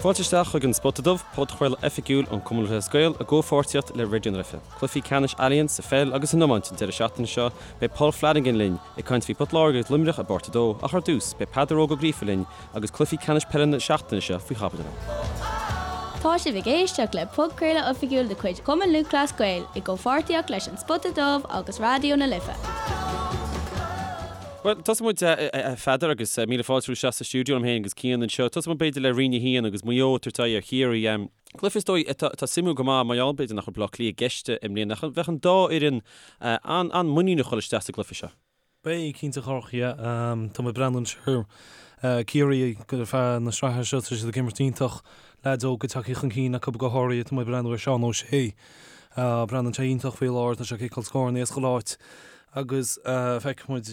Fáilte isteach chuig an Spota Dubh, podchraoladh oifigiúil an Cumann Lúthchleas Gael i gcomhpháirtíocht le Raidió na Life. Cluichí ceannais Allianz sa pheil agus san iomáint an deireadh seachtaine seo, beidh Paul Flanagan linn ag caint faoi Port Láirge agus Luimneach i bpáirt 2, ach ar dtús, beidh Peadar Óg Ó Gríofa linn agus cluichí ceannais peile na seachtaine seo faoi chaibidil. Tá sibh ag éisteacht le podchraoladh oifigiúil de chuid Chumann Lúthchleas Gael i gcomhpháirtíocht leis An Spota Dubh agus Raidió na Life. Bhuel, tosóidh muid, a Pheadair, agus míle fáilte romhat isteach sa stiúideo liom féin agus Cian anseo. Tosóidh muid b'fhéidir le Roinn 1 agus Maigh Eo ag tabhairt aghaidh ar Chiarraí. Cluiche is dóigh atá suimiúil go maith mar gheall b'fhéidir nach raibh Baile Átha Cliath i gceist i mbliana ach bheadh an dá fhoireann an-mhuiníneach dhul isteach sa gcluiche seo. Beidh, cinnte a Chárthaigh, yeah. Tá mé ag breathnú anois ar Ciarraí ar feadh na sraithe seo, tá siad ag imirt iontach, leaids óga tagtha chun cinn acu go háirithe, tá mé ag breathnú ar Seán O'Shea, breathnaíonn sé iontach faoi láthair, tá sé ag ciceáil scóranna as chuile áit agus feicfidh muid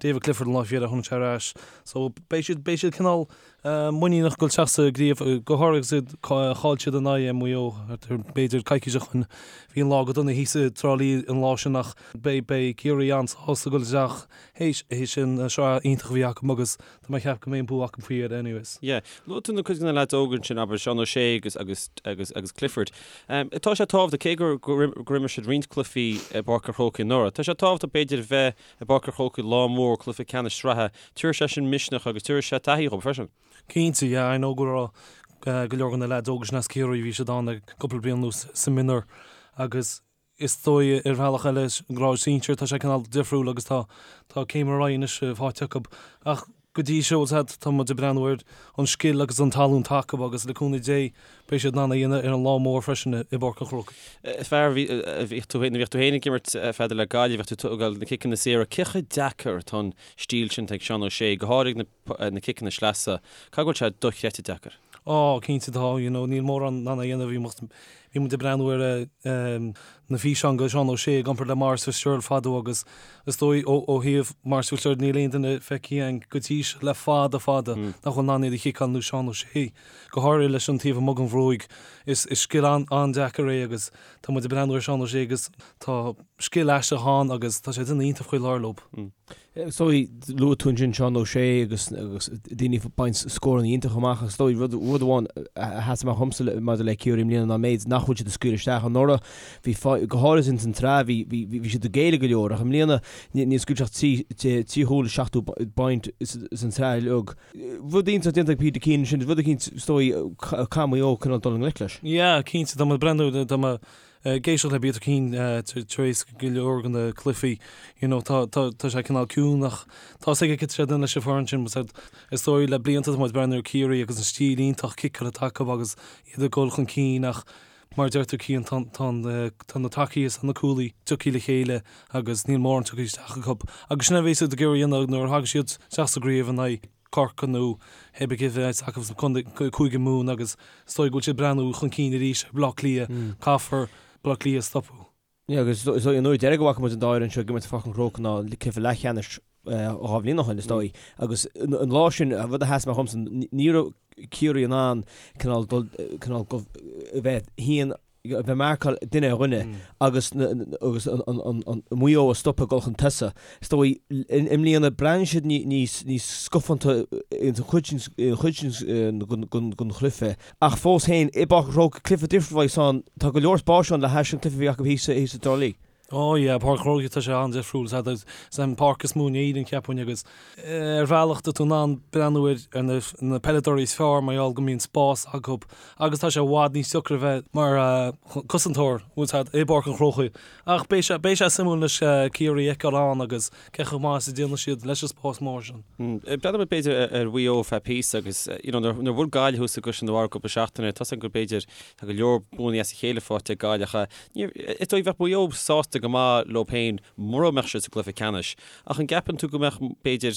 David Clifford an lá faoi dheireadh, tháinig sé ar ais. So beidh siad, beidh siad cineál muiníneach dul isteach sa gcraobh, go háirithe agus iad, chaill siad in aghaidh Maigh Eo, b'fhéidir coicís ó shin. Bhí an lá go dona thíos i dTrá Lí an lá sin ach beidh, beidh Ciarraí an-sásta dul isteach théis, théis an sraith iontach a bhí acu agus tá mé ag ceapadh go mbeidh an bua acu faoi dheireadh anyways. Yeah. Luaigh tú na cuid de na leaids óga ansin, abair Seán O'Shea agus, agus, agus, agus Clifford. Tá sé tábhachtach, cé gur, gur, gur imir siad roinnt cluichí i bPáirc an Chrócaigh anuraidh, tá sé tábhachtach b'fhéidir a bheith i bPáirc an Chrócaigh lá mór cluiche ceannais sraithe, tabharfaidh sé sin misneach agus tabharfaidh sé taithí dhóibh freisin. Cinnte, yeah, I know go raibh go leor de na leaids óga sin as Ciarraí, bhí siad ann le cúpla bliain anuas sa mionúr agus is dóigh ar bhealach eile grád sinsir tá sé cineál difriúil agus tá tá céim ar aghaidh anois faighte acu ach go dtí seo tá muid ag breathnú ar an scil agus an tallann atá acu agus le cúnamh Dé Beidh siad in ann é a dhéanamh ar an lá mór freisin i bPáirc an Chrócaigh. Fear, bhíodh tú féin, bhíodh tú féin ag imirt a Pheadair le Gaillimh, bhíodh tú ag tógáil na ciceanna saora. Cé chomh deacair atá an stíl sin atá ag Seán O'Shea, go háirid na na ciceanna sleasa, caithfidh go bhfuil sé dochreidte deacair? Á, cinnte tá, you know, níl mórán in ann é a dhéanamh. Bhí muid, bhí muid ag breathnú ar na físeáin de Seán O'Shea i gcomparáid le Maurice Fitzgerald fadó agus is dóigh ó ó thaobh Maurice Fitzgerald níl aon duine feicthe againn go dtí seo le fada fada nach bhfuil in ann iad a chiceáil ar nós Seán O'Shea. Go háirithe leis an taobh amuigh den bhruaigh. Is scil an-deacair é agus tá muid ag breathnú ar Seán O'Shea agus tá scil aisteach ann agus tá sé ag déanamh iontach faoi láthair leo. Is dóigh, luaigh tú ansin Seán O'Shea agus daoine ag baint scóranna iontacha amach agus is dóigh rud amháin a sheas amach dhomsa maidir le Ciarraí i mbliana ná an méid nach bhfuil siad ag scaoileadh isteach. Anuraidh bhí, go háirithe ins an tsraith, bhí siad ag géilleadh go leor ach i mbliana níor scaoil siad ach 3 chúl is 70 bpointe san tsraith uilig. Rud iontach déanta ag Peter Keane ansin, rud eicínt, is dóigh, caithfidh Maigh Eo cineál dul i ngleic leis. Yeah, cinnte, tá mé ag breathnú, tá mé ag éisteacht le Peter Keane tar éis go leor de na cluichí, you know, tá, tá, tá sé cineál ciúin ach tá 's aige cad tá sé ag déanamh leis an foireann sin, but is dóigh le blianta tá muid ag breathnú ar Ciarraí agus an stíl iontach ciceála atá acu agus iad ag dul chun cinn ach mar a deir tú Cian, tá, tá, tá na tacaí is na cúlaí tagtha le chéile agus níl mórán tugtha isteach acu. Agus sin a bheas siad ag iarraidh a dhéanamh nuair a thagann siad isteach sa gcraobh in aghaidh Corcaigh nó pé ar bith cé a bheas acu sa Cúige Mumhan agus is dóigh go bhfuil siad ag breathnú chun cinn arís ar Bhaile Átha Cliath, caithfear Baile Átha Cliath a stopadh. Yeah, agus is dóigh an uair deiridh go bhfaca muid an dá fhoireann seo ag imirt i Pháirc an Chrócaigh ná cluiche leathcheannais 2 bhliain ó shin, is dóigh. Agus an lá sin, an rud a sheas amach dhomsa, ní raibh Ciarraí in ann cineál dul, cineál go, a bheith thíon, a bheith marcáil duine ar dhuine agus agus an Maigh Eo a stopadh ag dul chun tosaigh. Is dóigh, i mbliana, breathnaíonn siad níos, níos scafánta ins an chuid sin, an chuid sin den chluiche. Ach fós féin, i bPáirc an Chrócaigh, cluiche difriúil a bheas ann, tá go leor spáis ann le hais an cluiche a bhí acu thíos i dTrá Lí. Ó yeah, Páirc an Chrócaigh, tá sé an-difriúil. Is é an páirc is mó in Éirinn, cheapfainn, agus ar bhealach tá tú in ann breathnú ar na peileadóirí is fearr mar gheall go mbíonn spás acu agus tá sé i bhfad níos deacra a bheith mar chosantóir, bhfuil a fhios agat, i bPáirc an Chrócaigh. Ach beidh sé, beidh sé suimiúil anois Ciarraí a fheiceáil ann agus cé chomh maith is a déanfaidh siad leis an spás mór sin. Breathnóidh muid b'fhéidir ar Mhaigh Eo feadh píosa agus you know nuair a bhuail Gaillimh thuas i gCaisleán an Bharraigh cúpla seachtain, tá 's agam gur b'fhéidir tá go leor buanna as a chéile faighte ag Gaillimh ach is dóigh bheadh Maigh Eo sásta go maith leo féin mura mbeadh siad sa gcluiche ceannais. Ach an gceapann tú go mbeadh b'fhéidir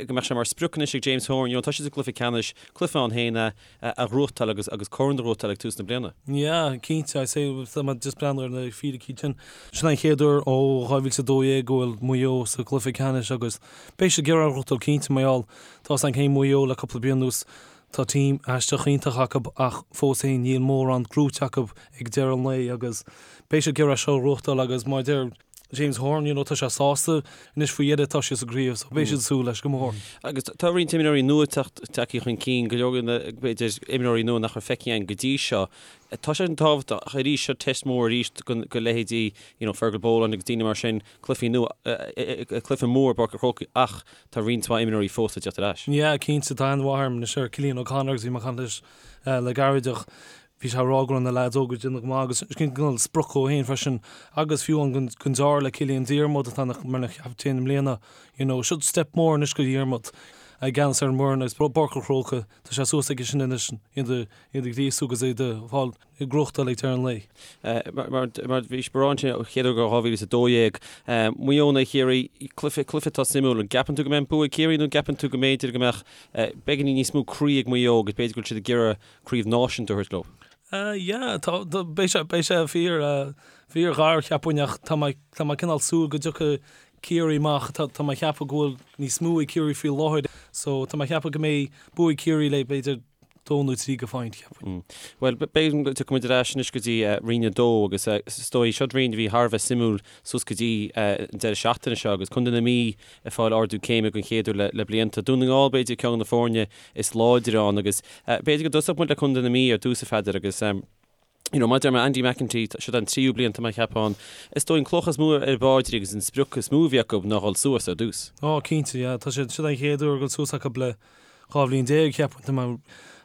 go mbeadh sé mar sprioc anois ag James Horan, you know tá siad sa gcluiche ceannais, cluiche ann féin a a ghnóthachtáil agus agus corn a ghnóthachtáil ag tús na bliana? Yeah, cinnte, I say, tá mé just breathnú ar na fíricí sin. Sin an chéad uair ó 2012 go bhfuil Maigh Eo sa gcluiche ceannais agus beidh siad ag iarraidh a ghnóthachtáil cinnte mar gheall tá 's againn cé Maigh Eo le cúpla bliain anuas. Tá team aisteach iontach acu ach fós féin níl mórán gnóite acu ag deireadh an lae agus beidh siad ag iarraidh seo a ghnóthachtáil agus mar a deir. James Horan, you know, tá sé sásta anois faoi dheireadh, tá siad sa gcraobh, so beidh siad ag súil leis go mór. Agus tá roinnt imreoirí nua tagtha chun cinn, go leor de na, b'fhéidir, imreoirí nua nach raibh feicthe againn go dtí seo. Tá sé an-tábhachtach, ach arís, seo test mór arís do leithéidí, you know, Fergal Boland agus daoine mar sin, cluichí nua, cluiche mór i bPáirc an Chrócaigh ach tá roinnt mhaith imreoirí fós le teacht ar ais. Yeah, cinnte, tá aithne mhaith agam anois ar Cillian O'Connor agus bhí mé ag caint leis le gairid ach bhí sé ag rá go raibh na leaids óga ag déanamh go maith agus sin cineál sprioc dhó féin freisin agus fiú an don deartháir le Cillian Diarmuid atá mar na chaptaen i mbliana, you know, seo step mór anois do Dhiarmuid i gceannas ar an bhfoireann agus Páirc an Chrócaigh, tá sé suas aige sin anois iad a iad a ghríosú agus iad a fháil ag gnóthachtáil ag deireadh an lae. Mar mar bhí sé ansin an chéad uair 2012, Maigh Eo in aghaidh Chiarraí, cluiche cluiche atá suimiúil. An gceapann tú go mbeidh an bua ag Ciarraí nó an gceapann tú go mb'fhéidir go mbeadh beagáinín níos mó croí ag Maigh Eo agus b'fhéidir go bhfuil siad ag iarraidh craobh náisiúnta a thabhairt leo? Yeah, tá, beidh sé, beidh sé fíor, fíor ghar, cheapfainn, ach tá mé, tá mé cineál súil go dtiocfaidh Ciarraí amach, tá, tá mé ag ceapadh go bhfuil níos mó ag Ciarraí faoi láthair, so tá mé ag ceapadh go mbeidh bua ag Ciarraí le b'fhéidir dó nó trí go phointe, cheapfainn. Bhuel, b'fhéidir go dtiocfaidh muid ar ais anois go dtí Roinn 2 agus is dóigh, seo roinn a bhí thar a bheith suimiúil suas go dtí an deireadh seachtaine seo agus Contae na Mí ag fáil ardú céime den chéad uair le blianta. Dún na nGall b'fhéidir ceann de na foirne is láidre ann agus b'fhéidir go dtosódh muid le Contae na Mí ar dtús a Pheadair agus you know, mar a deir mé Andy McEntee, seo an tríú bliain tá mé ag ceapadh ann. Is dóigh an cloch is mó ar a bpaidrín agus an sprioc is mó a bhí acu ná dhul suas ar dtús. Ó, cinnte, yeah. Tá sé, seo an chéad uair ag dul suas acu le 12 bhliain, cheapfainn, tá mé,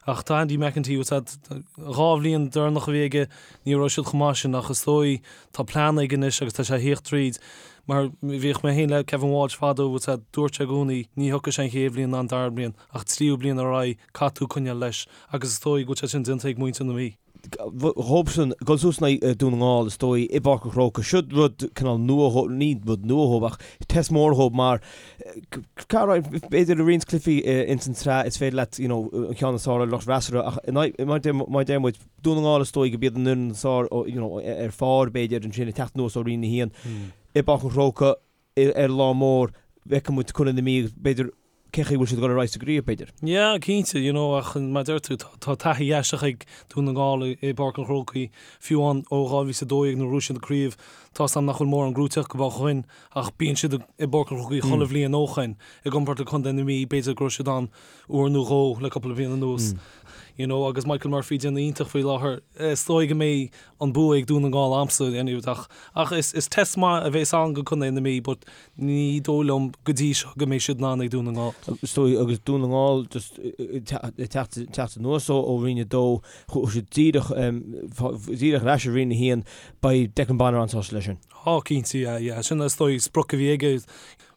ach tá Andy McEntee, bhfuil a fhios agat, dhá bhliain deireanach a bhí aige, ní raibh siad chomh maith sin ach is dóigh tá plean aige anois agus tá sé a thíocht tríd mar bhíodh mé féin le Kevin Walsh fadó, bhfuil a fhios agat, dúirt sé i gcónaí ní thiocfaidh sé an chéad bhliain ná an dara bliain ach tríú bliain ar aghaidh caithfidh tú coinneáil leis agus is dóigh go bhfuil sé sin déanta ag muintir na Mí. Dhóibhsean, dul suas in aghaidh Dún na nGall, is dóigh, i bPáirc an Chrócaigh. Seo rud cineál nua dhóibh, ní rud nua dhóibh ach test mór dhóibh mar b'fhéidir i roinnt cluichí ins an tsraith is féidir leat you know an ceann is fearr ar lucht freasúra ach in aghaidh, mar mar deir muid, Dún na nGall is dóigh go b'iad an fhoireann is fearr you know ar phár b'fhéidir ansin ag teacht anuas ó Roinn 1 i bPáirc an Chrócaigh. ar lá mór, feicfidh muid Contae na Mí agus b'fhéidir cé chaoi bhfuil siad ag dul ar aghaidh sa gcraobh, b'fhéidir. Yeah, cinnte, you know, ach mar a deir tú, tá taithí aisteach ag Dún na nGall i bPáirc an Chrócaigh, fiú amháin ó 2012 nuair a bhuaigh siad an craobh, tá 's agam nach bhfuil mórán gnóite acu ó shoin, ach bíonn siad i bPáirc an Chrócaigh chuile bhliain ó shoin, i gcomparáid le Contae na Mí, b'fhéidir go raibh siad ann uair nó dhó le cúpla bliain anuas, you know, agus Michael Murphy ag déanamh iontach faoi láthair, is dóigh go mbeidh an bua ag Dún na nGall a'msa anyway ach ach is is test maith a bhéas ann go Contae na Mí but ní dóigh liom go dtí seo go mbeidh siad in ann ag Dún na nGall. Is dóigh agus Dún na nGall just ag teacht teacht anuas ó ó Roinn 2 chuaigh siad díreach díreach ar ais i Roinn 1 beidh Declan Bonner an-sásta leis sin. Á cinnte yeah yeah sin is dóigh sprioc a bhí aige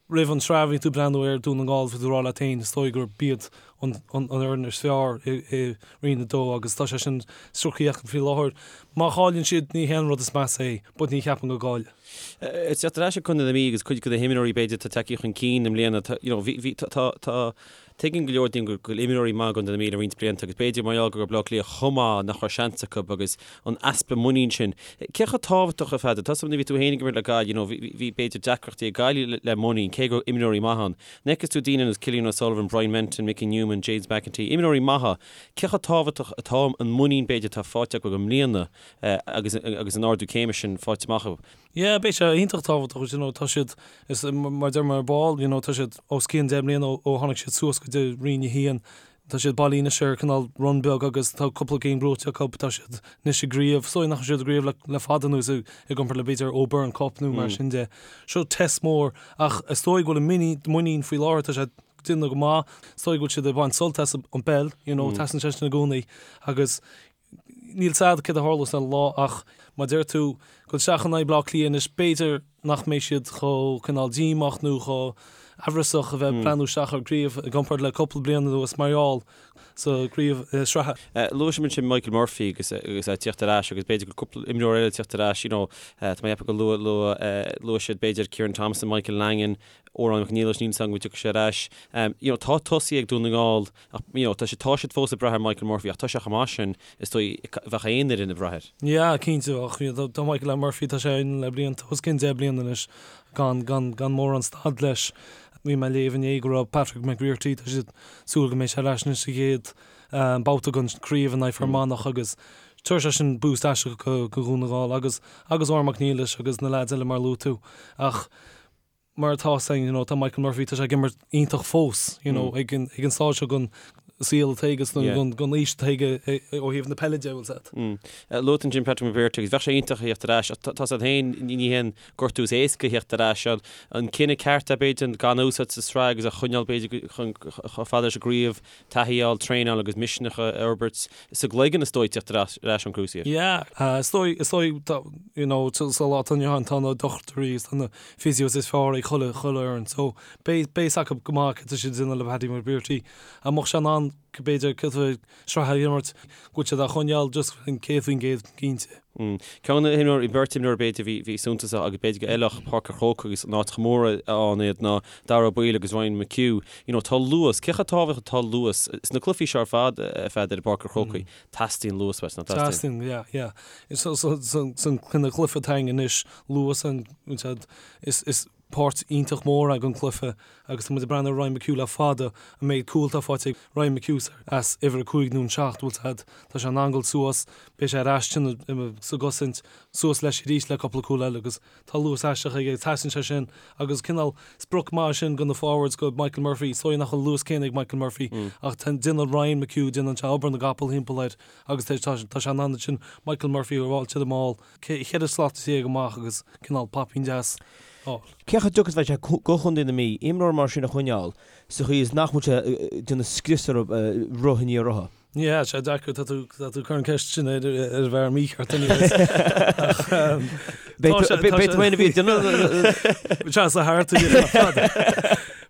roimh an tsraith bhí tú ag breathnú ar Dún na nGall bhí tú ag rá leat féin is dóigh gurb iad an fhoireann is fearr i Roinn 2 agus tá sé sin sroichte acu faoi láthair. Má chailleann siad ní hé an rud is measa é but ní cheapaim go gcaillfidh. Ag teacht ar ais ag Contae na Mí agus cuid de na himreoirí b'fhéidir atá tagtha chun cinn i mbliana tá you know bhí bhí tá tá Tuigeann go leor daoine go bhfuil imreoirí maithe i gContae na Mí le roinnt blianta agus b'fhéidir mar gheall go raibh Bleá Cliath chomh maith nach raibh seans acu agus an easpa muinín sin. Cé chomh tábhachtach a Pheadair? Tá 's agam nuair a bhí tú féin ag imirt le Gaillimh, you know, bhí b'fhéidir deacrachtaí ag Gaillimh le muinín, cé go raibh imreoirí maithe ann. Nuair a fheiceas tú daoine ar nós Cillian O'Sullivan, Brian Menton, Mickey Newman, James McEntee, imreoirí maithe, cé chomh tábhachtach atá an muinín b'fhéidir atá faighte acu i mbliana agus agus an ardú céime sin faighte amach acu? Yeah, beidh sé iontach tábhachtach, you know, tá siad, is mar a deir mé ar ball, you know, tá siad os cionn 10 mbliana ó tháinig siad suas go dtí Roinn 1. Tá siad bailithe anois ar cineál run beag agus tá cúpla game buaite acu, tá siad anois i gcraobh, is dóigh nach raibh siad i gcraobh le, le fada anuas i, i gcomparáid le b'fhéidir O'Byrne Cup nó mar sin de. Seo test mór ach is dóigh go bhfuil a muinín, muinín faoi láthair, tá sé ag déanamh go maith, is dóigh go bhfuil siad ag baint sult as an bpeil, you know, teastaíonn sé sin i gcónaí agus Níl 's a'd céard a tharlós ar an lá ach mar a deir tú, dul isteach in aghaidh Bleá Cliath anois, b'fhéidir nach mbeidh siad chomh cineál díomách nó chomh aimhreasach a bheith ag breathnú isteach ar gcraobh i gcomparáid le cúpla bliain anuas mar gheall sa gcraobh sraithe. Luaigh muid ansin Michael Murphy agus agus é ag tíocht ar ais agus b'fhéidir go cúpla imreoir eile ag tíocht ar ais, you know, tá mé ag ceapadh go luath luath luaigh siad b'fhéidir Kieran Thompson, Michael Langan, Odhrán Mac Niallais, níl 's agam go dtiocfaidh sé ar ais. You know, tá tosaithe ag Dún na nGall Ach, you know, tá siad, tá siad fós ag brath ar Michael Murphy ach tá sé chomh maith sin, is dóigh, bheadh aon fhoireann ag brath air. Yeah, cinnte, ach you know, tá Michael Murphy, tá sé ann le blianta, os cionn 10 bliana anois, gan, gan, gan mórán stad leis. Bhí mé ag léamh inné go raibh Patrick McBrearty, tá siad ag súil go mbeidh sé ar ais anois sa chéad babhta den chraobh in aghaidh Fear Manach agus. Tabharfaidh sé sin boost aisteach go Dhún na nGall agus agus Odhrán Mac Niallais agus na leaids eile mar a luaigh tú. Ach mar atá a fhios againn, you know, tá Michael Murphy, tá sé ag imirt iontach fós, you know, ag an ag an stáid seo den saol atá aige, den den aois atá aige ó thaobh na peile de, bhfuil a fhios agat. Luaigh tú ansin Patrick McBrearty agus bheadh sé iontach a theacht ar ais ach tá a fhios agat féin ní haon gortú is éasca a theacht ar ais. An cinneadh ceart é b'fhéidir gan a úsáid sa sraith agus a choinneáil b'fhéidir chun chomh fada leis an gcraobh taithí a fháil, traenáil agus misneach a fhorbairt sa gcloigeann is dóigh teacht ar ais ón cruciate. Yeah, is dóigh, is dóigh, you know, sa lá atá inniu ann tá na dochtúirí is tá na physios is fearr ag chuile, chuile fhoireann. So, beidh, beidh a fhios acu go maith cad tá siad ag déanamh le Paddy McBrearty. An mbeadh sé in ann, b'fhéidir, cúpla sraith a imirt, go bhfuil siad á choinneáil just 100% cinnte. Ceann de na himreoirí, beirt imreoir b'fhéidir a bhí, bhí suntasach agus b'fhéidir go bhfeilfeadh Páirc an Chrócaigh agus an áit chomh mór ann iad ná Daire Ó Baoill agus Ryan McHugh. You know, tá luas, cé chomh tábhachtach atá luas sna cluichí seo ar fad, a Pheadair, i bPáirc an Chrócaigh, teastaíonn luas uait, nach dteastaíonn? Teastaíonn, yeah, yeah. So, so, so, san cineál cluiche atá againn anois, luas an, is, is, páirt iontach mór den chluiche agus tá muid ag breathnú ar Ryan McHugh le fada, an méid cúl atá faighte ag Ryan McHugh as uimhir 5 nó an 7, bhfuil a fhios agat, tá sé in ann dul suas, beidh sé ar ais sa gcosaint, suas leis arís le cúpla cúl eile agus tá luas aisteach aige, teastaíonn sé sin agus cineál sprioc maith sin do na forwards, do Michael Murphy, is dóigh nach bhfuil an luas céanna ag Michael Murphy ach déanann Ryan McHugh, déanann sé obair na gcapall thimpeall air agus tá sé in ann ansin Michael Murphy a fháil to the maul. 14 slat amach agus cineál poipín deas a fháil. Cé chomh deacair is a bheidh sé do Chontae na Mí imreoir mar sin a choinneáil sa chaoi is nach bhfuil sé ag déanamh scrios orthu roth i ndiaidh rotha? Yeah, sé deacair, tá tú tá tú ag cur an ceist sin ar ar an bhfear mícheart anyways. Ach tá sé Beidh tú féin a bhí ag déanamh Seans a thart ar fad.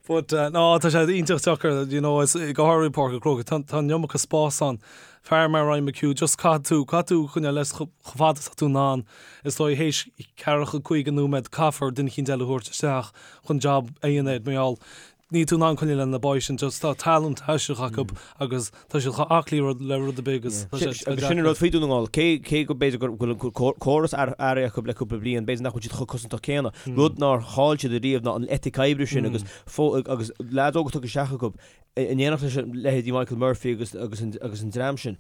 But no, tá sé iontach deacair, you know, is go háirithe Páirc an Chrócaigh, tá tá an iomarca spás ann. Fear mar Ryan McHugh, just caithfidh tú, caithfidh tú coinneáil leis chomh fada is atá tú in ann. Is dóigh théis ceathracha, 50 nóiméad caithfear duine eicínt eile a thabhairt isteach chun job a dhéanamh air mar gheall níl tú in ann coinneáil le na boys sin, just tá talent aisteach acu agus tá siad chomh aclaí rud le rud ar bith agus tá sé Agus sin an rud faoi Dún na nGall, cé cé go b'fhéidir go bhfuil an córas athraithe acu le cúpla bliain, b'fhéidir nach bhfuil siad chomh cosantach céanna. Rud nár chaill siad ariamh ná an eitic oibre sin agus agus leaids óga tugtha isteach acu in éineacht leis leithéidí Michael Murphy agus agus an agus an dream sin,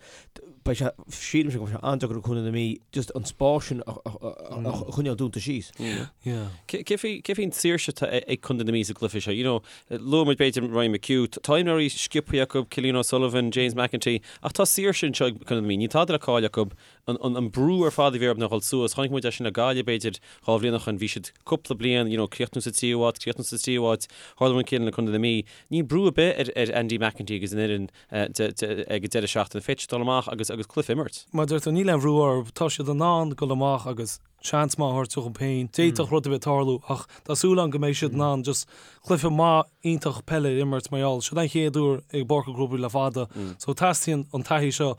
beidh sé, sílimse go mbeidh sé an-deacair ag Contae na Mí just an spás sin a choinneáil dúnta síos. Cé faoi cé faoin tsaoirse atá ag Contae na Mí sa gcluiche seo? You know, luaigh muid b'fhéidir Ryan McHugh, tá imreoirí sciobtha acu, Cillian O'Sullivan, James McEntee, ach tá saoirse anseo ag Contae na Mí, níl tada le cailleadh acu, an brú ar fad a bhí orthu ná dhul suas. Chonaic muid é sin le Gaillimh, b'fhéidir, 2 bhliain ó shin. Bhí siad cúpla bliain, you know, críochnú sa tríú háit, críochnú sa tríú háit. Tharla an rud céanna le Contae na Mí. Níl brú ar bith ar ar Andy McEntee agus an fhoireann ag an deireadh seachtaine. Féadfaidh siad dul amach agus agus cluiche a imirt. Mar a deir tú, níl aon bhrú orthu. Tá siad in ann dul amach agus seans maith a thabhairt dóibh féin. D'fhéadfadh rud ar bith tarlú ach tá súil agam go mbeidh siad in ann just cluiche maith iontach peile a imirt mar gheall seo an chéad uair i bPáirc an Chrócaigh le fada. So teastaíonn an taithí seo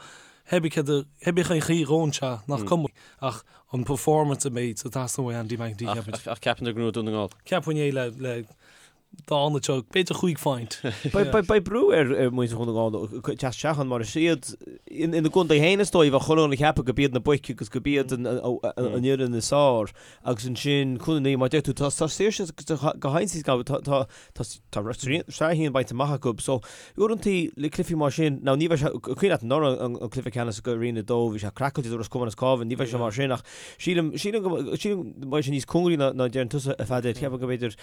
Hébí cén chaoi a ngabhann sé, nach cuma, ach an performance a mbeidh ag teastáil ó Andy McEntee, ceapaim. Ach ceapann tú go ngnóthóidh Dún na nGall? Ceapaim é le dá seo, b'fhéidir chúig phointe. Beidh brú ar mhuintir Dhún na nGall teacht isteach ann mar is iad ina gcontae féin is dóigh, bheadh chuile dhuine ag ceapadh go b'iad na boic agus go b'iad an fhoireann is fearr agus ansin Contae na Mí, mar a deir tú, tá saoirse go hionsaí tá Tá sraith a haon bainte amach acu so uaireantaí le cluichí mar sin, now ní bheidh sé, cuimhin leat anuraidh an cluiche ceannais go Roinn 2, bhí sé craiceáilte do Ros Comáin is Cabhán, ní bheidh sé mar sin ach sílim, sílim go, sílim go mbeidh sé níos cóngaraí ná ná deireann tusa a Pheadair, ceapaim go mb'fhéidir,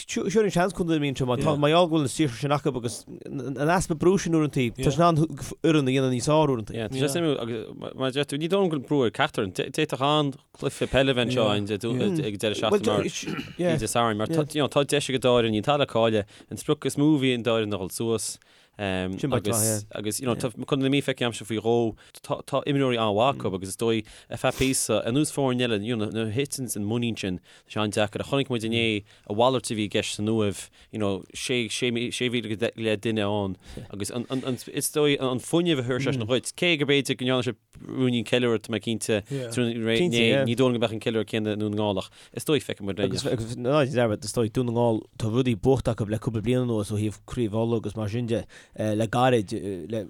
sure an seans Contae na Mí anseo mar tá, mar gheall go bhfuil an saoirse sin acu agus an easpa brú sin uaireantaí, tá siad in ann foireann a dhéanamh níos fearr uaireantaí. Yeah, tá sé suimiúil agus mar a deir tú, ní dóigh liom go bhfuil brú ar ceachtar, d'fhéadfadh an cluiche peile a bheith anseo ag an deireadh seachtaine mar bhí Dé Sathairn mar tá deis ag an dá fhoireann, níl tada le cailleadh. An sprioc is mó a bhí ag an dá fhoireann ná dhul suas agus agus you know tá Contae na Mí feicthe agamsa faoi dhó tá imreoirí an-mhaith acu agus is dóigh ar feadh píosa ar nós foirne eile you know nuair a thiteann an muinín sin tá sé an-deacair ach chonaic muid inné a mhalairt a bhí i gceist san Uaimh you know 6,000 go leith duine ann agus an is dóigh an fuinneamh a chuir sé sin dhuit cé go b'fhéidir go ndearna sé ruainnín ceiliúradh, tá mé cinnte, Cinnte, yeah. ní dóigh liom go mbeadh an ceiliúradh céanna i nDún na nGall ach is dóigh feicfidh muid Agus, agus ná déan dearmad, is dóigh, Dún na nGall, tá rudaí buachta acu le cúpla bliain anuas ó thaobh Craobh Uladh agus mar sin de, le gairid, le,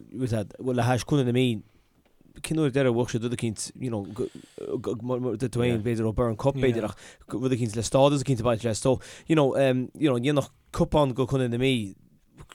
le hais Contae na Mí, cén uair deireadh a bhuaigh siad rud eicínt, you know, go, go, mar, mar, dúirt tú féin, b'fhéidir ó Burren Cup, b'fhéidir, ach rud eicínt le stádas eicínt ag baint leis. So, you know, um, you know, dhéanfadh cupán go Contae na Mí.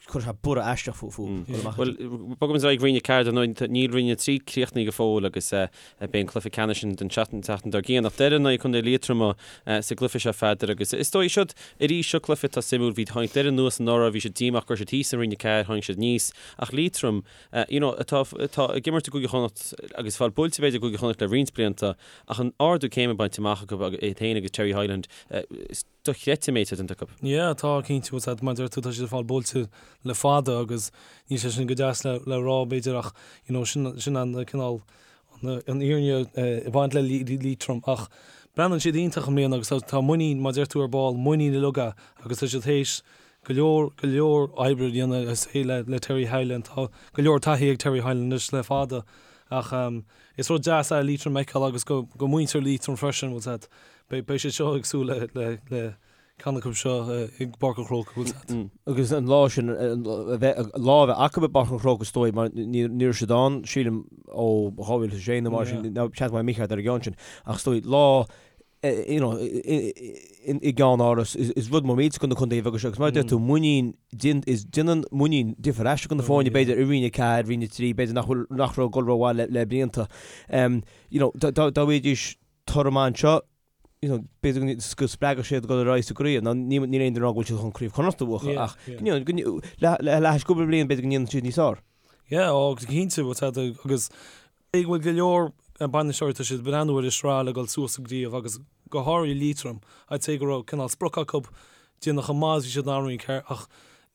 Chuir sé borradh aisteach fúthu. Bhuel, bogaimis ar aghaidh Roinn 4 dar ndóigh, níl Roinn 3 críochnaithe go fóill agus beidh an cluiche ceannais an tseachtain dár gcionn. Ach Doire in aghaidh Contae Liatroma sa gcluiche seo, a Pheadair, agus is dóigh siod arís seo cluiche atá suimiúil. Bhí tháinig Doire anuas anuraidh, bhí siad díomách go raibh siad thíos i Roinn 4, tháinig siad aníos. Ach Liatroim, you know, atá atá ag imirt i gCúige Chonnacht agus fáil buailte b'fhéidir i gCúige Chonnacht le roinnt blianta ach an ardú céime bainte amach acu iad féin agus Terry Hyland, is dochreidte an méid atá déanta acu. Yeah, tá, cinnte, bhfuil a fhios agat, mar a deir tú, tá siad ag fáil buailte le fada agus níl sé sin go deas le, le rá, b'fhéidir, ach, you know, sin, sin an cineál, an, an fhírinne ag baint le Liatroim ach breathnaíonn siad iontach i mbliana agus tá, tá muinín, mar a deir tú ar ball, muinín uilig agus tá siad théis go leor, go leor oibre a dhéanamh is é le, le Terry Hyland, tá go leor taithí ag Terry Hyland anois le fada ach is rud deas é Liatroim a fheiceáil agus go, go muintir Liatroim freisin, bhfuil a fhios agat. Beidh siad seo ag súil le ceann acu seo i bPáirc an Chrócaigh, bhfuil a fhios agat. Agus an lá sin, a bheith, lá a bheith acu i bPáirc an Chrócaigh is dóigh, mar ní raibh siad ann, sílim, ó 2006 nó mar sin, nó seans go mbeidh mé mícheart ar an gceann sin, ach is dóigh, lá, you know, i gceannáras, is rud mór millteach do na contaetha beaga seo, agus mar a deir tú, muinín, is déanann muinín difear aisteach do na foirne, b'fhéidir, i Roinn 4, Roinn 3, b'fhéidir nach bhfuil, nach raibh ag dul rómhaith le blianta. You know, dá bhfaighidís toradh maith anseo, you know, b'fhéidir go spreagfadh siad dul ar aghaidh sa gcraobh. Now, níl aon duine ag rá go bhfuil siad chun Craobh Chonnacht a bhuachan, ach, you know, le hais cúpla bliain, b'fhéidir go ndéanann siad níos fearr. Yeah, ó, cinnte, bhfuil a fhios agat, agus go bhfuil go leor bainisteoirí, tá siad ag breathnú ar an sraith le dul suas sa gcraobh agus go háirithe Liatroim, I'd say go raibh cineál sprioc acu déanamh chomh maith is bhí siad in ann Roinn 4 ach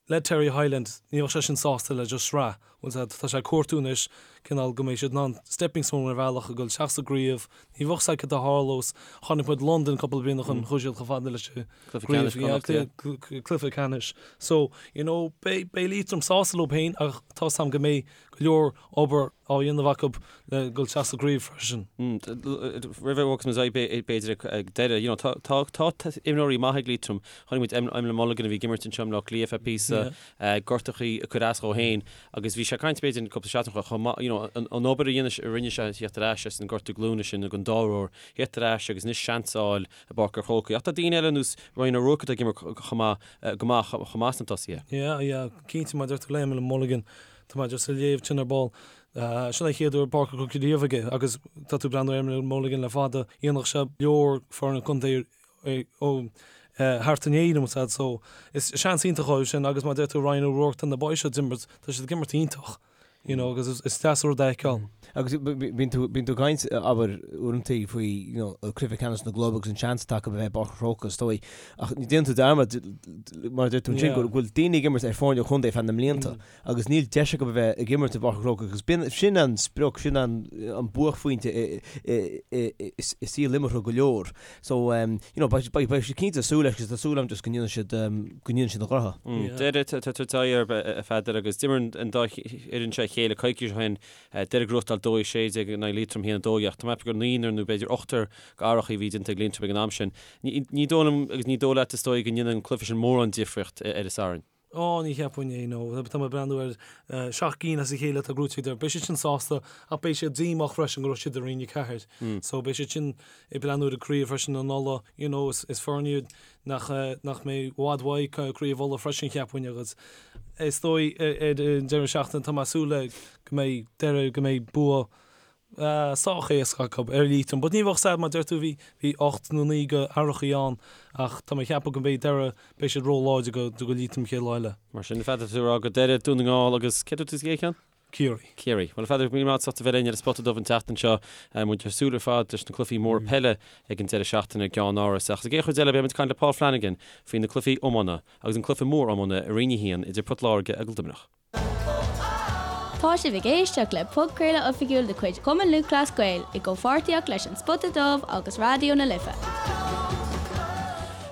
Le Terry Hyland, ní bheadh sé sin sásta le just sraith, bhfuil a fhios agat, tá sé ag cuartú anois cineál go mbeidh siad in ann stepping stone ar bhealach a dhul isteach sa gcraobh, ní bheadh a fhios agat cad a tharlós, chonaic muid Londain cúpla bliain ó shin, chuaigh siad chomh fada leis an gcraobh, cluiche ceannais. So, you know, beidh Liatroim sásta leo féin ach tá a fhios agam go mbeidh go leor obair á dhéanamh acu le dul isteach sa gcraobh freisin. Roimh a bhogfas muid ar aghaidh b'fhéidir ag deireadh, you know, tá tá tá imreoirí maithe ag Liatroim. Chonaic muid Emlyn Mulligan a bhí ag imirt anseo i mBleá Cliath feadh píosa, gortachaí ag cur as dhó féin agus bhí sé ag caint b'fhéidir cúpla seachtain ó chomh maith, you know, an obair a dhéanamh a rinne sé theacht ar ais as an gortú glúine sin ag an dá uair, theacht ar ais agus anois seans a fháil i bPáirc an Chrócaigh. Ach tá daoine eile ar nós Ryan O'Rourke atá ag imirt chomh maith, go maith chomh maith sna tosaithe. Yeah, yeah, cinnte mar a deir tú le Emlyn Mulligan, Tá mé just ag léamh ansin ar ball. Sin an chéad uair i bPáirc an Chrócaigh riamh aige agus tá tú ag breathnú ar Emlyn Mulligan le fada. Dhéanfadh sé leor foirne contae ó thart in Éirinn, bhfuil a fhios agat, so is seans iontach dóibh sin agus mar a deir tú Ryan O'Rourke, tá na boys seo ag imirt, tá siad ag imirt iontach, you know, agus is deas an rud é a fheiceáil. Agus bíonn tú, bíonn tú ag caint, abair, uaireanta faoi, you know, cluiche ceannais na gclub agus an seans atá acu a bheith i bPáirc an Chrócaigh, is dóigh. Ach déanann tú dearmad, mar a deir tú ansin, go bhfuil daoine ag imirt ar foirne contae feadh na mblianta. agus níl deis acu a bheith ag imirt i bPáirc an Chrócaigh agus b'in, sin an sprioc, sin an buaicphointe i saol imeartha go leor. So, you know, beidh siad cinnte ag súil leis agus tá súil agam just go ndéanfaidh siad, go ndéanfaidh siad a ngnoithe. Doire, tá tú ag tabhairt air, a Pheadair, agus d'imir an dá fhoireann seo a chéile coicís ó shin, Doire ag gnóthachtáil 2-16 in aghaidh Liatroim 1-12 ach tá mé ag ceapadh gur naonúr nó b'fhéidir ochtar d'athraitheacha a bhí déanta ag Liatroim ag an am sin. Ní dóigh liom agus ní dóigh leat is dóigh go ndéanann an cluiche sin mórán difríocht ar an Satharn. Ó, ní cheapfainn é, no. Tá mé ag breathnú ar sheacht gcinn as a chéile atá gnóthaithe ag Doire. Beidh siad sin sásta ach beidh siad díomách freisin go raibh siad i Roinn 4. So beidh siad sin ag breathnú ar an gcraobh freisin in Uladh. You know, is foireann iad nach, nach mbeidh i bhfad uaidh craobh Uladh freisin cheapfainn agus is dóigh ar an deireadh seachtaine tá mé ag súil le go mbeidh Doire, go mbeidh bua sách éasca acu ar Liatroim. But ní bheadh sad mar deir tú bhí bhí 8 nó 9 go athraitheachaí ann ach tá mé ag ceapadh go mbeidh Doire beidh siad ró-láidir go do Liatroim chéad lá eile. Mar sin, Pheadair, tú ag rá go Doire, Dún na nGall agus cé dúirt tú sa gcéad cheann? Ciarraí. Ciarraí. Bhuel, a Pheadair, míle maith agat as ucht a bheith linn ar an Spota Dubh an tseachtain seo. Muid ag súil ar fad leis na cluichí móra peile ag an deireadh seachtaine i gceannáras. Ach sa gcéad chuid eile beidh muid ag caint le Paul Flanagan faoi na cluichí iomána agus an cluiche mór iomána i Roinn 1 idir Port Láirge agus Luimneach. Tá sibh ag éisteacht le podchraoladh oifigiúil de chuid Chumann Lúthchleas Gael i gcomhpháirtíocht leis An Spota Dubh agus Raidió na Life.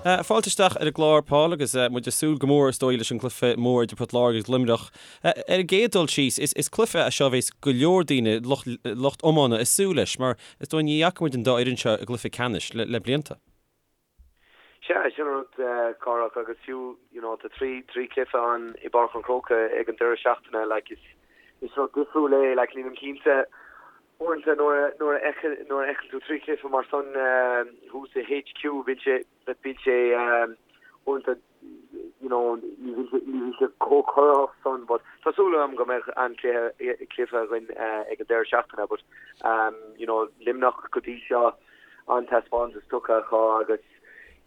Fáilte isteach ar an gclár, Paul, agus muid ag súil go mór, is dóigh, leis an gcluiche mór idir Port Láirge agus Luimneach. Ar an gcéad dul síos, is cluiche é seo a bheas go leor daoine, lucht iomána, ag súil leis, mar is dóigh ní fhaca muid an dá fhoireann seo i gcluiche ceannais le blianta. Sea, sin an rud, Cárthach, agus fiú, you know, tá 3, 3 chluiche ann i bPáirc an Chrócaigh ag an deireadh seachtaine, like, is, is rud difriúil é, like, nílim cinnte, uaireanta nuair a, nuair a fheiceann, nuair a fheiceann tú 3 chluiche mar san thuas i HQ, bíonn sé, bíonn sé, uaireanta. you know, ní bhí sé chomh corraitheach san but tá súil agam go mbeidh an-chluiche cluiche againn ag an deireadh seachtaine but you know, Luimneach go dtí seo an-taispeántas tugtha acu agus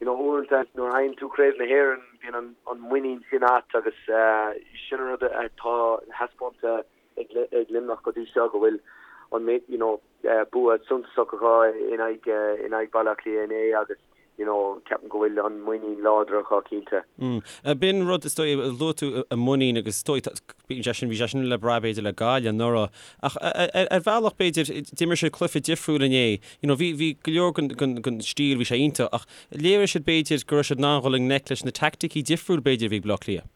you know, uaireanta nuair a fhaigheann tú Craobh na hÉireann bíonn an an muinín sin agat agus sin an rud atá taispeánta ag Luimneach go dtí seo go bhfuil an you know, bua suntasach acu in aghaidh in aghaidh Baile Átha Cliath inné agus you know ceapaim go bhfuil an muinín láidir acu cinnte. B'in rud is dóigh, luaigh tú an muinín agus is dóigh bíonn sé sin, bhí sé sin le brath b'fhéidir le Gaillimh anuraidh ach ar bhealach b'fhéidir d'imir siad cluiche difriúil inné, you know bhí bhí go leor den den den stíl bhí sé iontach ach léirigh siad b'fhéidir go raibh siad in ann dhul i ngleic leis na teaicticí difriúil b'fhéidir a bhí ag Baile Átha Cliath.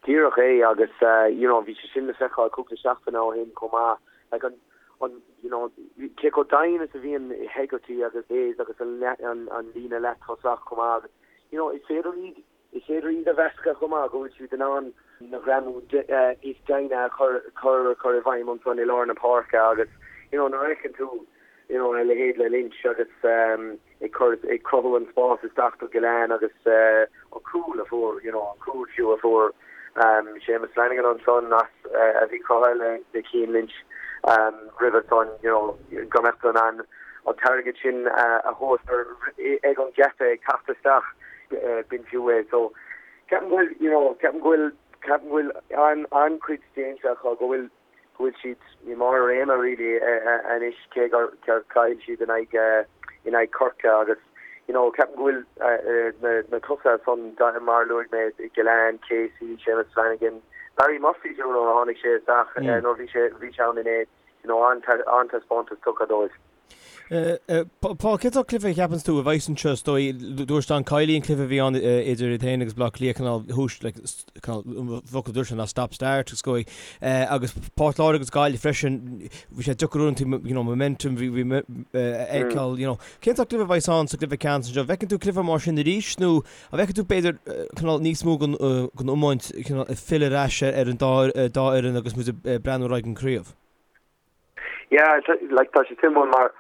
Díreach é agus you know bhí sé sin le feiceáil cúpla seachtain ó shin chomh maith. Like an, an, you know, cé chomh doimhin is a bhíonn Hegarty agus Hayes agus an, an, an líne leath-tosach chomh maith agus you know is féidir iad, is féidir iad a mheascadh chomh maith go bhfuil siad in ann na greamú níos doimhne a chur, chur, chur i bhfeidhm ansan i lár na páirce agus you know nuair a fheiceann tú you know a leithéid le Lynch agus um, ag cur, ag cruthú an spás isteach do Gillane agus an cúl a fuair, you know, an cúl fiú a fuair Séamus Flanagan ansan as a bhí cruthaithe le Cian Lynch roimhe san, you know, go mbeadh tú in ann an t-airgead sin a thabhairt ar ag an gheata ag teacht isteach, b'in fiú é. So ceapaim go bhfuil, you know, ceapaim go bhfuil, ceapaim go bhfuil an-chuid déanta acu, go bhfuil go bhfuil siad i mbarr a réime really anois cé gur chaill siad in aghaidh in aghaidh Chorcaí agus you know ceapaim go bhfuil na na tosaithe san mar a luaigh mé Gillane, Casey, Séamus Flanagan, Barry Murphy fiú nuair a tháinig sé isteach nuair bhí sé bhí sé ann inné you know an-taispeántas tugtha dóibh. Paul, cén sórt cluiche a cheapanns tú a bheas anseo is dóigh? Dúirt Don Kiely an cluiche a bhí ann idir iad féin agus Baile Átha Cliath cineál thús like cineál an focal a dúirt sé ná stop start is dóigh agus Port Láirge agus Gaillimh freisin bhí sé deacair uaireanta you know momentum bhí bhí a fheiceáil you know. Cén sórt cluiche a bheas ann sa gcluiche ceannais anseo? An bhfeiceann tú cluiche mar sin arís nó an bhfeiceann tú b'fhéidir cineál níos mó den den iomáint cineál ag filleadh ar ais ar an dá dá fhoireann agus muid ag breathnú ar aghaidh an craobh? Yeah, like tá sé suimiúil mar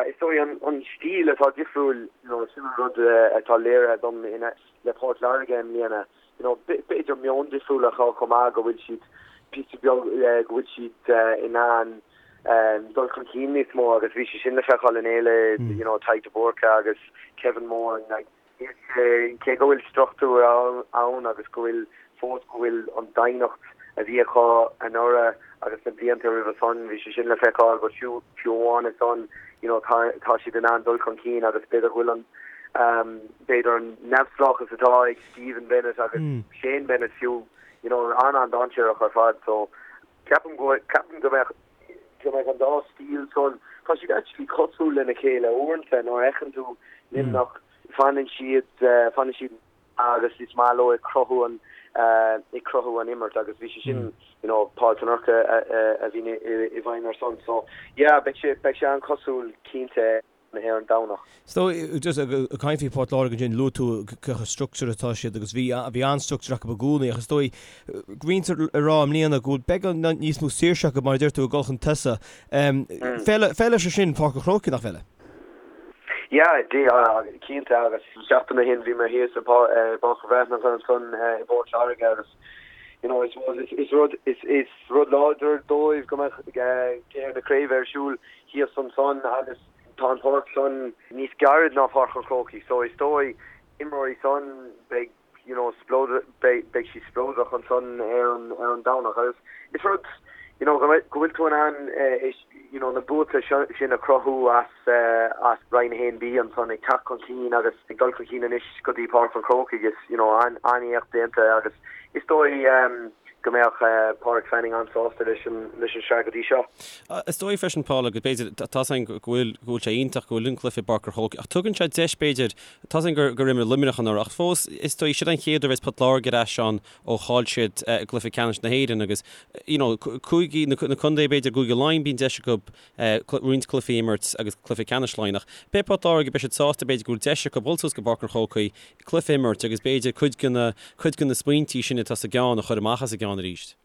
is dóigh an an stíl atá difriúil, you know, sin an rud atá léirithe dom in le Port Láirge i mbliana, you know, b'fhéidir meon difriúil acu chomh maith go bhfuil siad píosa beag go bhfuil siad in ann dul chun cinn níos mó agus bhí sé sin le feiceáil inné le you know Tadhg de Búrca agus Kevin Moran like Cé go bhfuil struchtúr ann agus go bhfuil fós go bhfuil an doimhneacht a bhí acu anuraidh agus na blianta roimhe san, bhí sé sin le feiceáil but fiú fiú amháin san you know tá tá siad in ann dul chun cinn agus b'fhéidir go bhfuil an b'fhéidir an neamhspleáchas atá ag Stephen Bennett agus Shane Bennett fiú you know an-an-dainséarach ar fad so ceapaim go ceapaim go mbeadh go mbeidh an dá stíl san, tá siad actually cosúil lena chéile uaireanta nuair a fheiceann tú Luimneach, fanann siad, fanann siad agus is maith leo ag cruthú an, ag cruthú an imirt agus bhí sé sin, you know, Paul Tanurka a bhí i bhfeidhm ar son. So, yeah, beidh sé, beidh sé an-chosúil cinnte. ar an Domhnach. So, just ag caint faoi Port Láirge ansin, luaigh tú cé chomh structured atá siad agus bhí bhí an-structure acu i gcónaí ach is dóigh go mbítear ag rá i mbliana go bhfuil beagán níos mó saoirse acu mar a deir tú ag dul chun tosaigh. Feileann sé sin Páirc an Chrócaigh, nach bhfeileann? Yeah, cinnte agus seachtain ó shin bhí mé thíos i bPáirc an Bhreathnach ansan i bPort Láirge agus you know, I suppose is rud is is rud láidir dóibh go mbeadh cluiche na craoibhe ar siúl thíos ansan agus tá an pháirc san níos gairid ná Páirc an Chrócaigh so is dóigh imreoirí san beidh you know spleodar beidh beidh siad spleodrach ansan ar an ar an Domhnach agus is rud you know go mbeidh go bhfuil tú in ann is you know na buaite seo sin a chruthú as as Roinn 1B ansan ag teacht chun cinn agus ag dul chun cinn anois go dtí Páirc an Chrócaigh is you know an an-éacht déanta agus is dóigh go mbeadh Pádraig Fanning an-sásta leis an leis an sraith go dtí seo. Is dóigh freisin, Paul, agus b'fhéidir, tá's againn go bhfuil, go bhfuil sé iontach go bhfuil an cluiche i bPáirc an Chrócaigh, ach tugann sé deis, b'fhéidir, tá's againn gur, gur imir Luimneach anuraidh, ach fós, is dóigh, siod an chéad uair a bheas Port Láirge ar ais ann ó chaill siad i gcluiche ceannais na hÉireann agus, you know, cúigí, na, na contae, b'fhéidir, Cúige Laighean, bíonn deis acu roinnt cluichí a imirt agus cluiche ceannais Laighean, ach beidh Port Láirge, beidh siad sásta, b'fhéidir, go bhfuil deis acu dul suas go Páirc an Chrócaigh, cluiche a imirt agus b'fhéidir cuid de na, cuid de na smaointí sin atá sa gceann a chur amach as a gceann arís.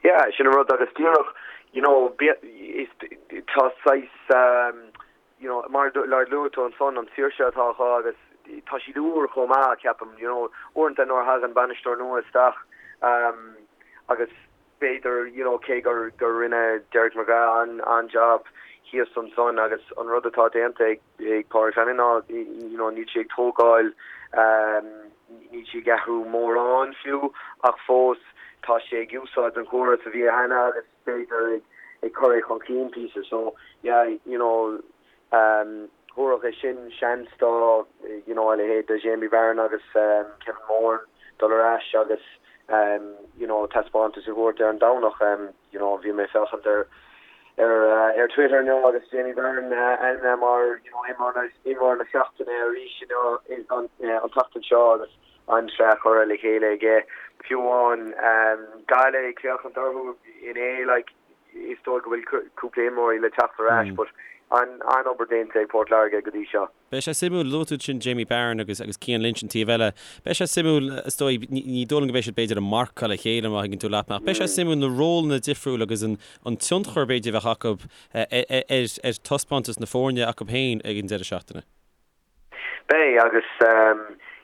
Yeah, sin an rud agus díreach, you know, is, tá saghas, you know, mar a luaigh tú ansan, an saoirse atá acu agus. tá siad úr chomh maith, ceapaim, you know, uaireanta nuair a thagann bainisteoir nua isteach agus b'fhéidir, you know, cé gur gur rinne Derek McGrath an an-job thíos ansan agus an rud atá déanta ag ag Pádraig Flanagan ná, you know, níl sé ag tógáil, níl sé ag athrú mórán fiú ach fós tá sé ag úsáid an chóras a bhí cheana agus b'fhéidir ag ag cur é chun cinn píosa. So, yeah, you know, thabharfadh é sin seans do, you know, a leithéid de Jamie Barron agus Kevin Moran dul ar ais agus, you know, taispeántas a thabhairt ar an Domhnach. You know, bhí mé ag féachaint ar ar ar Twitter inniu agus Jamie Barron ainmnithe mar, you know, imreoir imreoir na seachtaine arís inniu an an tseachtain seo agus an-tsraith curtha le chéile aige. Fiú amháin Gaillimh ag féachaint orthu inné, like, is dóigh go bhfuil cúpla imreoirí le teacht ar ais but an-obair déanta ag Port Láirge go dtí seo. Beidh sé suimiúil, luaigh tú ansin Jamie Barron agus agus Cian Lynch an taobh eile. Beidh sé suimiúil, is dóigh, ní dóigh liom go mbeidh siad b'fhéidir ag marcáil a chéile má thuigeann tú leat mé, ach beidh sé suimiúil na rólanna difriúil agus an an tionchar b'fhéidir a bheadh acu ar ar taispeántas na foirne acu féin ag an deireadh seachtaine. Beidh, agus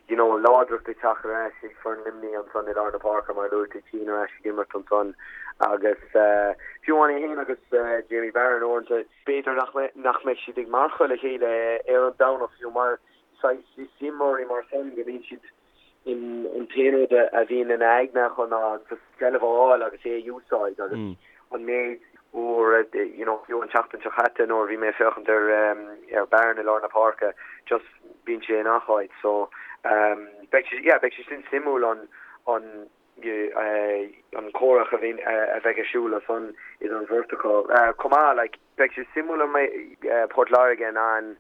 you know láidreacht ag teacht ar ais ag foireann Luimnigh ansan i lár na páirce mar a luaigh tú Cian ar ais ag imirt ansan agus fiú amháin é féin agus Jamie Barron uaireanta, b'fhéidir nach nach mbeidh siad ag marcáil a chéile ar an Domhnach fiú mar saghas is imreoirí mar san go mbíonn siad in an t-aon rud a bhíonn ina aigne acu ná just seilbh a fháil agus é a úsáid agus an méid uair you know fiú an tseachtain seo chaite nuair a bhí mé ag féachaint ar ar Barron i lár na páirce just bíonn sé i ngach áit so beidh sé yeah beidh sé sin suimiúil an an an comhrac a bhíonn a bheidh ar siúl ansan idir an bheirt acu chomh maith like beidh sé suimiúil an mbeidh Port Láirge in ann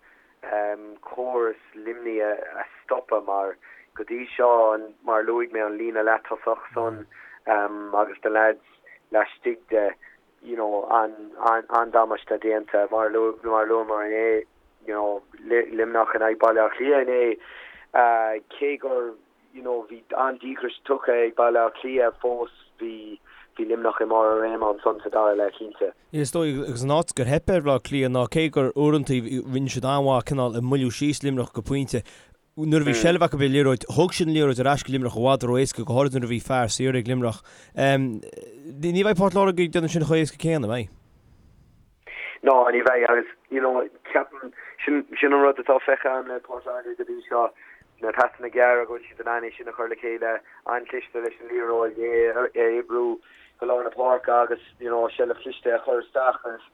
córas Luimnigh a stopadh mar go dtí seo mar a luaigh mé an líne leath-tosach san agus na leaids laistigh de you know an-damáiste déanta mar a luamar inné you know Luimneach in aghaidh Baile Átha Cliath inné cé gur you know bhí an-díograis tugtha ag Baile Átha Cliath fós bhí bhí Luimneach i mbarr a réime ansan sa dara leath cinnte. Is dóigh agus an áit gur theip ar Bhaile Átha Cliath ná cé gur uaireanta rinne siad an-mhaith cineál ag moilliú síos Luimneach go pointe, nuair a bhí seilbh acu ar an liathróid, thug siad an liathróid ar ais go Luimneach i bhfad ró-éasca, go háirid nuair a bhí fear saor ag Luimneach. Ní bheidh Port Láirge ag déanamh sin chomh héasca céanna, an mbeidh? Ná, ní bheidh agus, you know, ceapaim, sin, sin an rud atá feicthe agam le Port Láirge go dtí seo, na pasanna gearra, go bhfuil siad in ann é sin a chur le chéile, an-chliste leis an liathróid, é a oibriú go lár na páirce agus, you know, seilbh chliste a chur isteach agus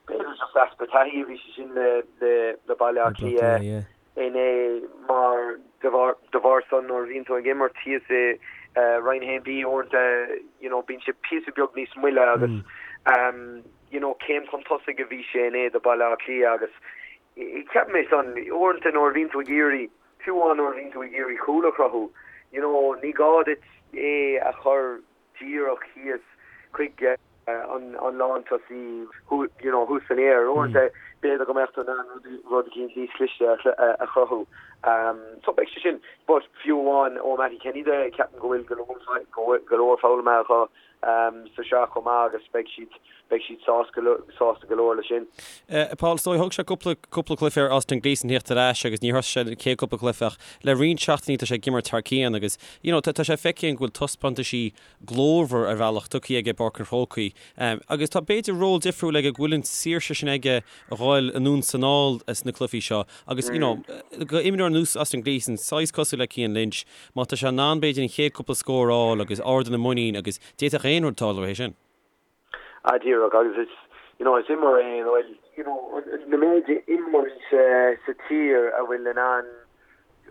b'fhéidir just easpa taithí a bhí sé sin le, le, le Baile Átha Cliath inné mar de bharr, de bharr san nuair a bhíonn tú ag imirt thíos i Roinn 1B uaireanta, you know, bíonn sé píosa beag níos moille agus, you know, céim chun tosaigh a bhí sé inné do Baile Átha Cliath agus ceapaim é san, uaireanta nuair a bhíonn tú ag iarraidh, fiú amháin nuair a bhíonn tú ag iarraidh cúl a chruthú, you know, ní gá duit é a chur díreach thíos chuig an lántosaí, you know, thuas san aer. Uaireanta b'fhéidir go mbeadh tú in ann rud eicínt níos cliste a chruthú. So beidh sé sin, but fiú amháin ó Mattie Kenny de, ceapaim go bhfuil go leor, go leor foghlamtha acu sa sraith chomh maith agus beidh siad, beidh siad sásta sásta go leor leis sin. Paul, is dóigh, thóg sé cúpla, cúpla cluiche ar Austin Gleeson theacht ar ais agus níor thosaigh sé an chéad cúpla cluiche ach le roinnt seachtainí tá sé ag imirt thar cionn agus you know tá sé feicthe againn go bhfuil taispeántaisí glórmhar ar bhealach tugtha aige i bPáirc an Chrócaigh agus tá b'fhéidir ról difriúil aige go bhfuil an saoirse sin aige a dhul anonn 's anall sna cluichí seo agus you know go imreoir ar nós Austin Gleeson, saghas cosúil le Cian Lynch, má tá sé in ann b'fhéidir an chéad cúpla scór a fháil agus ardú na muinín agus d'fhéadfadh aon rud tarlú é sin. Ah díreach agus is you know is imreoir é a bhfuil you know na méid imreoirí sa sa tír a bhfuil in ann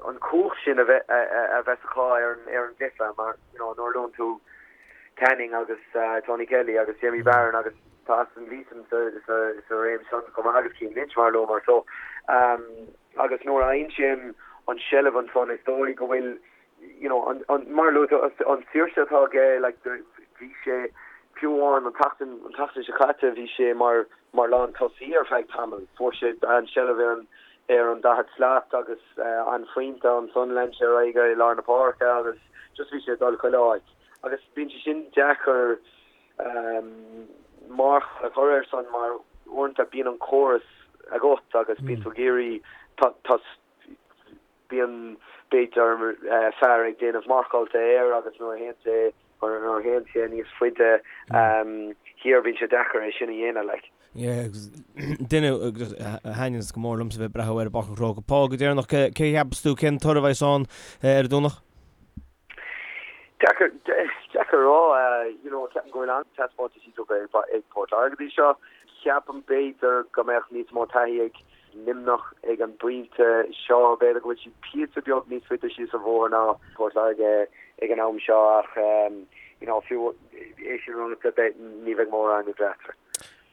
an cumhacht sin a bheith a bheith acu ar an ar an gcluiche mar you know nuair a luann tú Canning agus Tony Kelly agus Jamie Barron agus tá Austin Gleeson sa sa sa réim san chomh maith agus Cian Lynch mar a luamar so um, agus nuair a fhaigheann sé an an seilbh ansan is dóigh go bhfuil you know, an, an, mar a luaigh tú, an saoirse atá aige, like, bhí sé, fiú amháin an tseachtain, an tseachtain seo caite, bhí sé mar, mar lántosaí ar feadh tamaill. Fuair sé an seilbh ar an, ar an daichead slat agus an phointe ansan lean sé ar aghaidh i lár na páirce agus just bhí sé ag dul chuile áit. Agus bíonn sé sin deacair um, marc a chur air san mar uaireanta bíonn an córas agat agus bíonn tú ag iarraidh, tá, tá, Bíonn, b'fhéidir, fear ag déanamh marcáilte air agus nuair a théann sé, nuair a théann sé níos faide thiar bíonn sé deacair é sin a dhéanamh, like. Yeah, agus duine a thaitníonns go mór liomsa bheith ag breathnú air i bPáirc an Chrócaigh. Paul, go deireanach, cé a cheapas tú, cén toradh a bheas ann ar an Domhnach? Deacair, deacair a rá, you know, ceapaim go bhfuil an-taispeántaisí tugtha ag Port Láirge go dtí seo. Ceapaim b'fhéidir go mbeadh níos mó taithí ag Luimneach ag an bpointe seo. B'fhéidir go bhfuil siad píosa beag níos faide síos an bhóthar ná Port Láirge ag an am seo ach you know fiú é sin ráite beidh ní bheidh mórán idir eatarthu.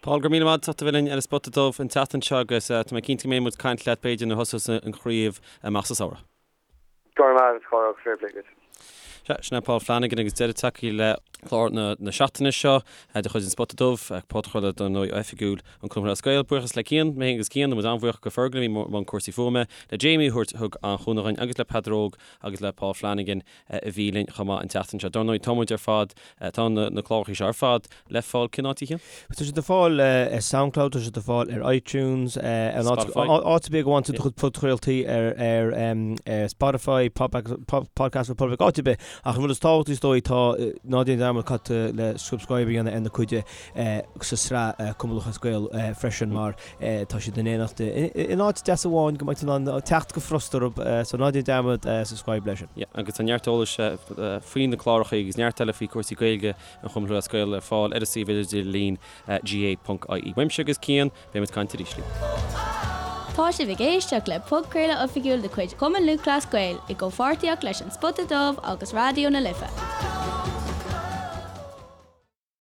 Paul, go raibh míle maith agat as ucht a bheith linn ar an Spota Dubh an tseachtain seo agus tá mé cinnte go mbeidh muid ag caint leat b'fhéidir nuair a thosós an chraobh amach sa samhradh. Go raibh maith agat, a Chárthach, fair play duit. Sea, sin é Paul Flanagan agus deireadh tagtha le clár na seachtaine seo de chuid an Spota Dubh, podchraoladh dar ndóigh oifigiúil an Chumann Lúthchleas Gael. Buíochas le Cian, mé féin agus Cian, tá muid an-bhuíoch go Fergal a bhí i mbun cúrsaí fuaime, le Jamie a thabhairt thug an chúnamh dhuinn agus le Peadar Óg agus le Paul Flanagan a bhí linn chomh maith an tseachtain seo. Dar ndóigh, tá muid ar fad, tá na cláracha seo ar fad le fáil cén áit a Chian? Tá siad le fáil ar Soundcloud, tá siad le fáil ar iTunes, ar Spotify. áit ar bith go bhfaigheann tú do chuid podchraoltaí ar ar ar Spotify, Podcast Republic, áit ar bith. Ach an rud is tábhachtaí is dóigh tá ná déan dearmad cad le subscribe a dhéanamh ar na cuid sa sraith Cumann Lúthchleas Gael freisin mar Tá siad in éineacht in áit deas amháin go mbeidh tú in ann teacht go furasta orthu, so ná déan dearmad subscribe leis sin. Yeah, agus tá neart eolais faoi na cláracha agus neart eile faoi chúrsaí Gaeilge an Chumainn Lúthchleas Gael ar fáil ar an suíomh idirlín gaa.ie. Uaimse agus Cian, beidh muid ag caint arís libh. Tá sibh ag éisteacht le podchraoladh oifigiúil de chuid Chumann Lúthchleas Gael i gcomhpháirtíocht leis An Spota Dubh agus Raidió na Life.